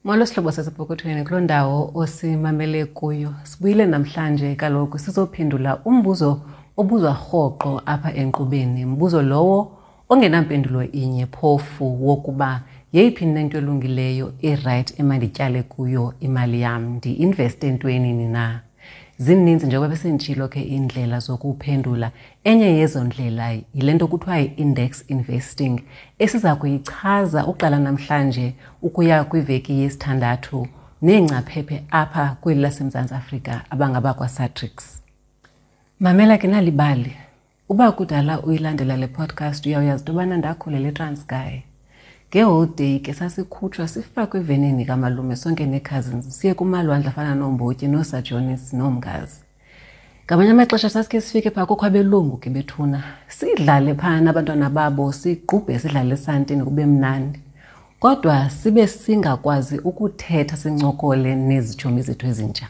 Molo sihlobo sasepokothweni kuloo ndawo osimamele kuyo. Sibuyile namhlanje kaloku sizophendula umbuzo obuzwa rhoqo apha enkqubeni. Mbuzo lowo ongenampendulo inye phofu wokuba yeyiphi nento elungileyo irayithi emandityale kuyo imali yam, ndi-investe entwenini na? Zininzi njengoba besenditshilo ke iindlela zokuphendula. Enye yezo ndlela yile nto kuthiwa yi-index investing esiza kuyichaza uqala namhlanje ukuya kwiveki yesithandathu neengcaphephe apha kweli laseMzantsi Afrika abangabakwaSatrix. Mamela ke nalibali. Uba kudala uyilandela le podcast uyawuyazi into yobana ndakhulela eTranskei. Ngeholidey ke sasikhutshwa sifakwe evenini kamalume sonke nee-cousins siye kumalwandle afana nooMbotyi nooSajonis nooMngazi. Ngamanye amaxesha sasikhe sifike phaa kukho abelungu ke bethuna sidlale phaa nabantwana babo siqubhe sidlale esantini kube mnandi. Kodwa sibe singakwazi ukuthetha sincokole nezitshomi zethu ezintsha.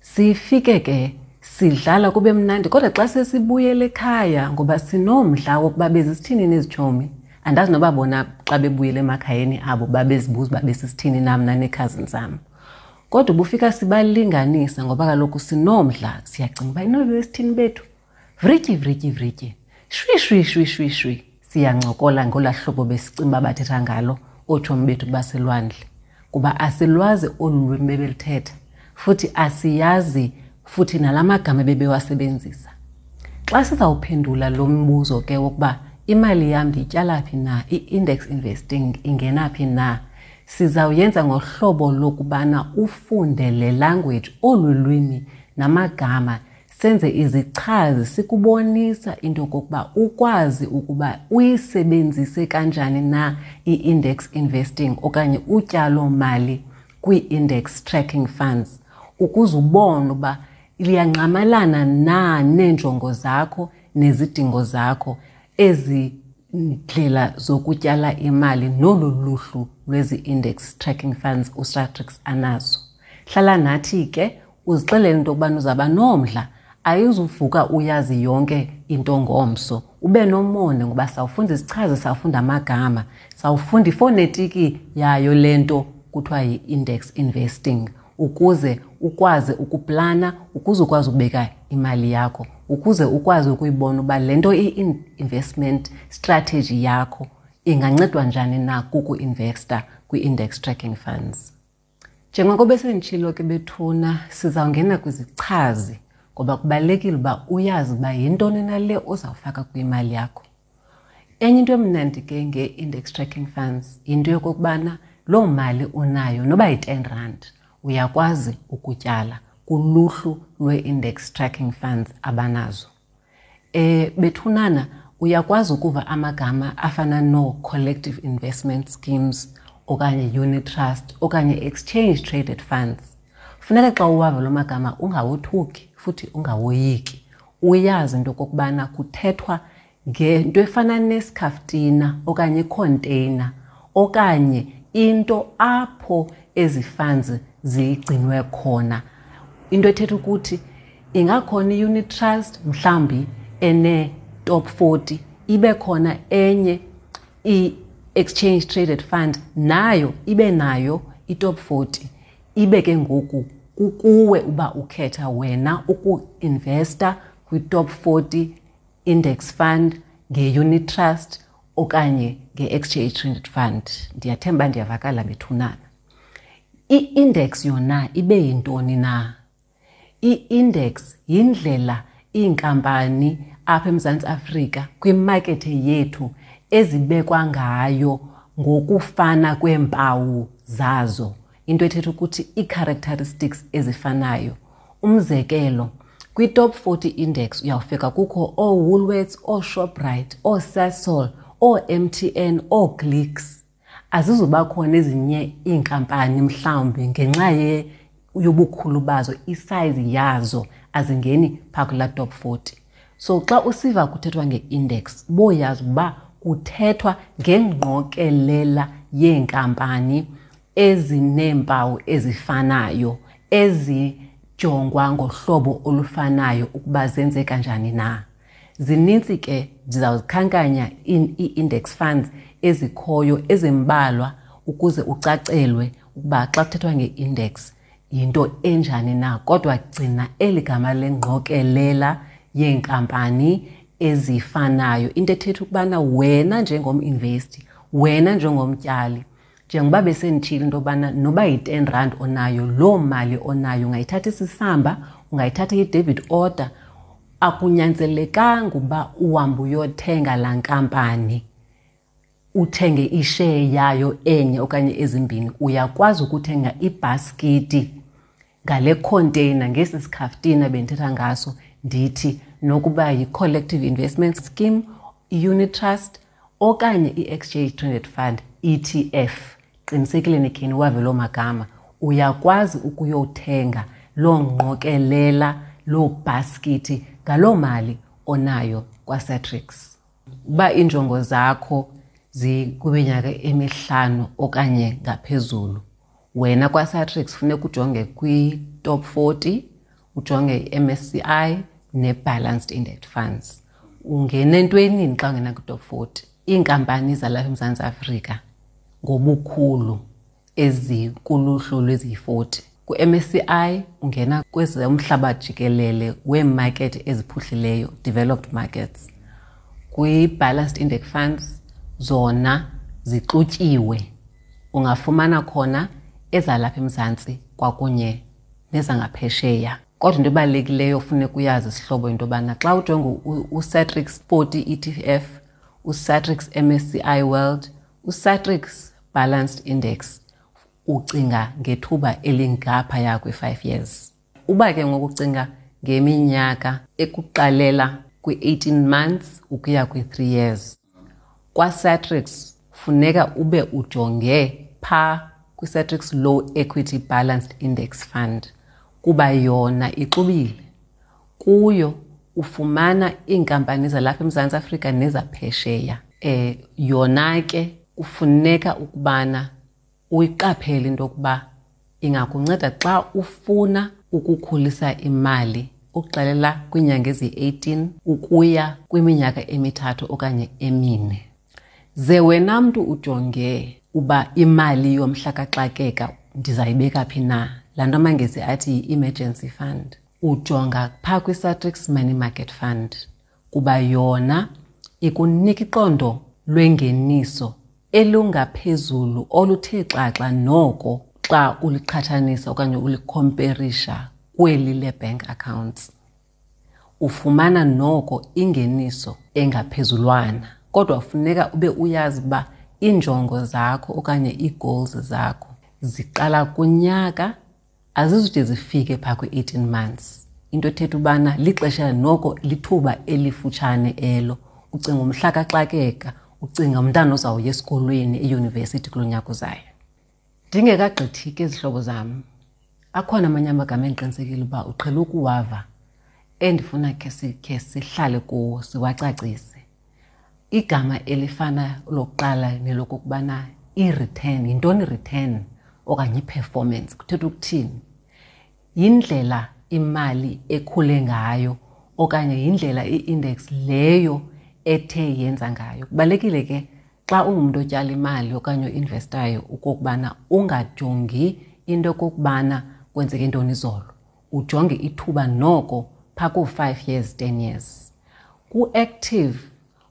Sifike ke sidlala kube mnandi kodwa xa sesibuyele ekhaya ngoba sinomdla wokuba bezisithini nezitshomi andazi noba bona xa bebuyele emakhayeni abo babezibuza uba besisithini nam naneekhazini zam. Kodwa ubufika sibalinganisa ngoba kaloku sinomdla siyacinga uba inoba besithini bethu. Vrityi vrityi vrityi shwi shwi shwi shwi shwi siyancokola ngolaa hlobo besicinga uba bathetha ngalo ootshomi bethu baselwandle kuba asilwazi olu lwimi bebeluthetha futhi asiyazi futhi nala magama bebewasebenzisa. Xa sizawuphendula lo mbuzo ke wokuba imali yam ndiyityala phi na, i-index investing ingena phi na, sizawuyenza ngohlobo lokubana ufunde le language, olu lwimi namagama, senze izichazi sikubonisa into yokokuba ukwazi ukuba uyisebenzise kanjani na i-index investing okanye utyalo-mali kwii-index tracking funds ukuze ubone uba liyangqamalana na neenjongo zakho nezidingo zakho ezi ndlela zokutyala imali nolu luhlu lwezi-index tracking funds uSatrix anazo. Hlala nathi ke uzixelele into yokubana uzawuba nomdla, ayizuvuka uyazi yonke into ngomso. Ube nomonde ngoba sawufunda izichazi, sawufunda amagama, sawufunda ifonetiki yayo le nto kuthiwa yi-index investing ukuze ukwazi ukuplana, ukuze ukwazi ukubeka imali yakho, ukuze ukwazi ukuyibona uba le nto i-investment strategy yakho ingancedwa njani na kuku-investa kwi-index tracking funds. Njengoko besenditshilo ke bethuna, sizawungena kwizichazi ngoba kubalulekile uba uyazi uba yintoni na le ozawufaka kwimali yakho. Enye into emnandi ke nge-index tracking funds yinto yokokubana loo mali unayo noba yi-ten rand uyakwazi ukutyala kuluhlu lwee-index tracking funds abanazo. Bethunana uyakwazi ukuva amagama afana noo-collective investment schemes okanye unit trust okanye exchange traded funds. Funeka xa uwava loo magama ungawothuki futhi ungawoyiki. Uyazi into okokubana kuthethwa ngento efana nesikhaftina okanye ikhonteyina okanye into apho ezi funds zigcinwe khona. Into ethetha ukuthi ingakhona i-unit trust mhlawumbi ene-top 40, ibe khona enye i-exchange traded fund nayo ibe nayo i-top 40. Ibe ke ngoku kukuwe uba ukhetha wena uku-investa kwi-top 40 index fund nge-unit trust okanye nge-exchange traded fund. Ndiyathemba ndiyavakala bethunana. I-index yona ibe yintoni na? I-index yindlela iinkampani apha eMzantsi Afrika kwimakethe yethu ezibekwa ngayo ngokufana kweempawu zazo. Into ethetha ukuthi ii-characteristics ezifanayo. Umzekelo, kwi-top 40 index uyawufika kukho ooWoolworths, ooShoprite, ooSasol, oo-M T N, ooClicks. Azizuba khona ezinye iinkampani mhlawumbi ngenxa yobukhulu bazo, isize yazo azingeni phaa kulaa top 40. So xa usiva kuthethwa nge-index, boyazi uba kuthethwa ngengqokelela yeenkampani ezineempawu ezifanayo, ezijongwa ngohlobo olufanayo ukuba zenze kanjani na. Zinintsi ke, ndizawuzikhankanya ii-index funds ezikhoyo ezimbalwa ukuze ucacelwe ukuba xa kuthethwa nge-index yinto enjani na. Kodwa gcina eli gama lengqokelela yeenkampani ezifanayo, into ethetha ukubana wena njengom-investi, wena njengomtyali, njengoba besenditshilo into yobana noba yi-10 rand onayo, loo mali onayo ungayithatha isisamba, ungayithatha i-debit order, akunyanzelekanga uba uhambe uyothenga laa nkampani, uthenge isheya yayo enye okanye ezimbini. Uyakwazi ukuthenga ibhaskiti ngale container, ngesi sikhaftina bendithetha ngaso, ndithi nokuba yi-collective investment scheme, i-unit trust okanye i-exchange traded fund, ETF. Qinisekile nikheni wave loo magama. Uyakwazi ukuyothenga loo ngqokelela, loo bhaskiti ngaloo mali onayo kwaSatrix. Uba iinjongo zakho zikwiminyaka emihlanu okanye ngaphezulu, wena kwaSatrix funeka ujonge kwi-top 40, ujonge i-MSCI ne-Balanced Index Funds. Ungena entwenini xa ungena kwi-top 40? Iinkampani zalapha eMzantsi Afrika ngobukhulu ezikuluhlu lweziyi-40. Ku-MSCI ungena kwezomhlaba jikelele weemakethi eziphuhlileyo, developed markets. Kwi-Balanced Index Funds zona zixutyiwe, ungafumana khona ezalapha eMzantsi kwakunye nezangaphesheya. Kodwa into ebalulekileyo ofuneka uyazi sihlobo into yobana xa ujonga uSatrix 40 ETF, uSatrix MSCI World, uSatrix Balanced Index, ucinga ngethuba elingaphaya kwe-5 years. Uba ke ngoku ucinga ngeminyaka ekuqalela kwi-18 months ukuya kwi-3 years, kwaSatrix funeka ube ujonge phaa kwiSatrix Low Equity Balanced Index Fund, kuba yona ixubile. Kuyo ufumana iinkampani zalapha eMzantsi Afrika nezaphesheya. Yona ke kufuneka ukubana uyiqaphele into yokuba ingakunceda xa ufuna ukukhulisa imali ukuxelela kwiinyanga eziyi-18 ukuya kwiminyaka emithathu okanye emine. Ze wena mntu ujonge uba imali yomhla kaxakeka ndizayibeka phi na, laa nto amaNgesi athi yi-emergency fund, ujonga phaa kwiSatrix Money Market Fund, kuba yona ikunika iqondo lwengeniso elungaphezulu oluthe xaxa noko xa uliqhathanisa okanye ulikhomperisha kweli le-bank accounts. Ufumana noko ingeniso engaphezulwana, kodwa funeka ube uyazi uba iinjongo zakho okanye ii-goals zakho ziqala kunyaka, azizude zifike phaa kwi-18 months. Into ethetha ubana lixesha noko, lithuba elifutshane elo. Ucinga umhla kaxakeka, ucinga umntana ozawuya esikolweni eyunivesithi kulo nyaka uzayo. Ndingekagqithi ke zihlobo zam, akhona amanye amagama endiqinisekile uba uqhele ukuwava endifuna khe sihlale kuwo siwacacise. Igama elifana lokuqala nelokokubana i-return, yintoni i-return okanye i-performance, kuthetha ukuthini? Yindlela imali ekhule ngayo okanye yindlela i-index leyo ethe yenza ngayo. Kubalulekile ke xa ungumntu otyala imali okanye oinvestayo okokubana ungajongi into okokubana kwenzeke ntoni izolo, ujonge ithuba noko phaa koo-5 years, 10 years. Ku-active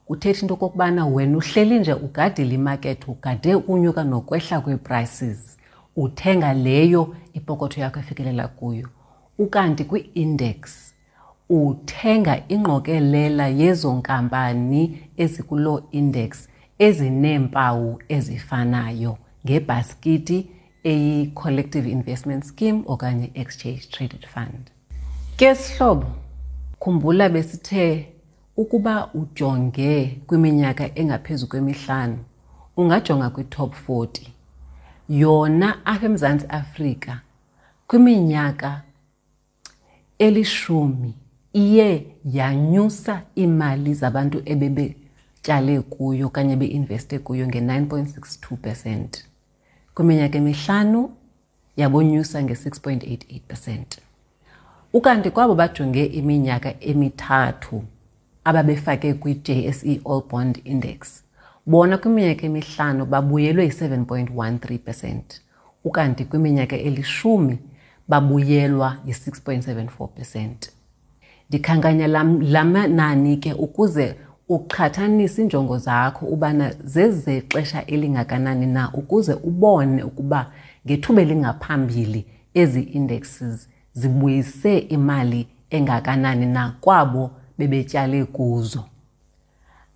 kuthetha into okokubana wena uhleli nje ugadile imakethi, ugade ukunyuka nokwehla kwee-prices, uthenga leyo ipokotho yakho efikelela kuyo. Ukanti kwi-index uthenga ingqokelela yezo nkampani ezikuloo index ezineempawu ezifanayo ngebhaskiti eyi-collective investment scheme okanye exchange traded fund. Ke sihlobo, khumbula besithe ukuba ujonge kwiminyaka engaphezu kwemihlanu, ungajonga kwi-top 40. Yona apha eMzantsi Afrika kwiminyaka elishumi iye yanyusa iimali zabantu ebebetyale kuyo okanye beinveste kuyo nge-9.62%. Kwiminyaka emihlanu yabonyusa nge-6.88%. Ukanti kwabo bajonge iminyaka emithathu ababefake kwi-JSE All Bond Index, Bona kwiminyaka emihlanu babuyelwe yi-7.13 percent, ukanti kwiminyaka elishumi babuyelwa yi-6.74 percent. Ndikhankanya la manani ke ukuze uqhathanise iinjongo zakho ubana zezexesha elingakanani na ukuze ubone ukuba ngethuba elingaphambili ezi indexes zibuyise imali engakanani na kwabo bebetyale kuzo.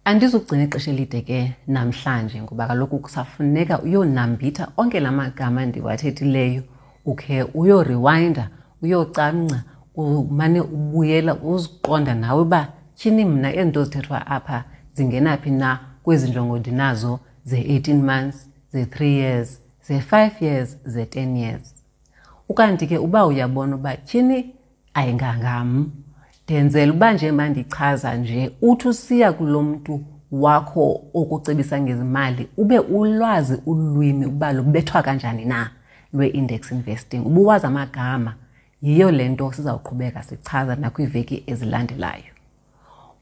Andizugcina ixesha elide ke namhlanje ngoba kaloku kusafuneka uyonambitha onke la magama ndiwathethileyo, ukhe uyoriwayinda, uyocamngca, umane ubuyela uziqonda nawe uba tyhini mna ezi nto zithethwa apha zingena phi na kwezi njongo ndinazo ze-18 months, ze-3 years, ze-5 years, ze-10 years. Ukanti ke uba uyabona uba tyhini ayingangam, ndenzela uba nje mandichaza nje, uthi usiya kulo mntu wakho okucebisa ngezimali ube ulwazi ulwimi uba lubethwa kanjani na lwe-index investing, ubuwazi amagama. Yiyo le nto sizawuqhubeka sichaza nakwiiveki ezilandelayo.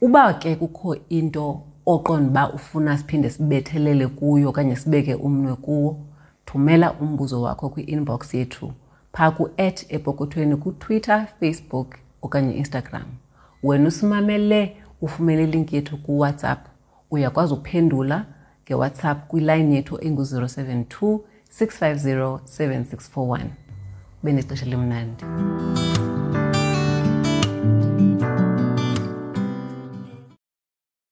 Uba ke kukho into oqonda uba ufuna siphinde sibethelele kuyo okanye sibeke umnwe kuwo, thumela umbuzo wakho kwi-inbox yethu phaa ku-at epokothweni kuTwitter, Facebook okanye Instagram. Wena usimamele ufumene ilinki yethu kuWhatsApp, uyakwazi ukuphendula ngeWhatsApp kwilayini yethu engu-072 650 7641. Ube nexesha elimnandi.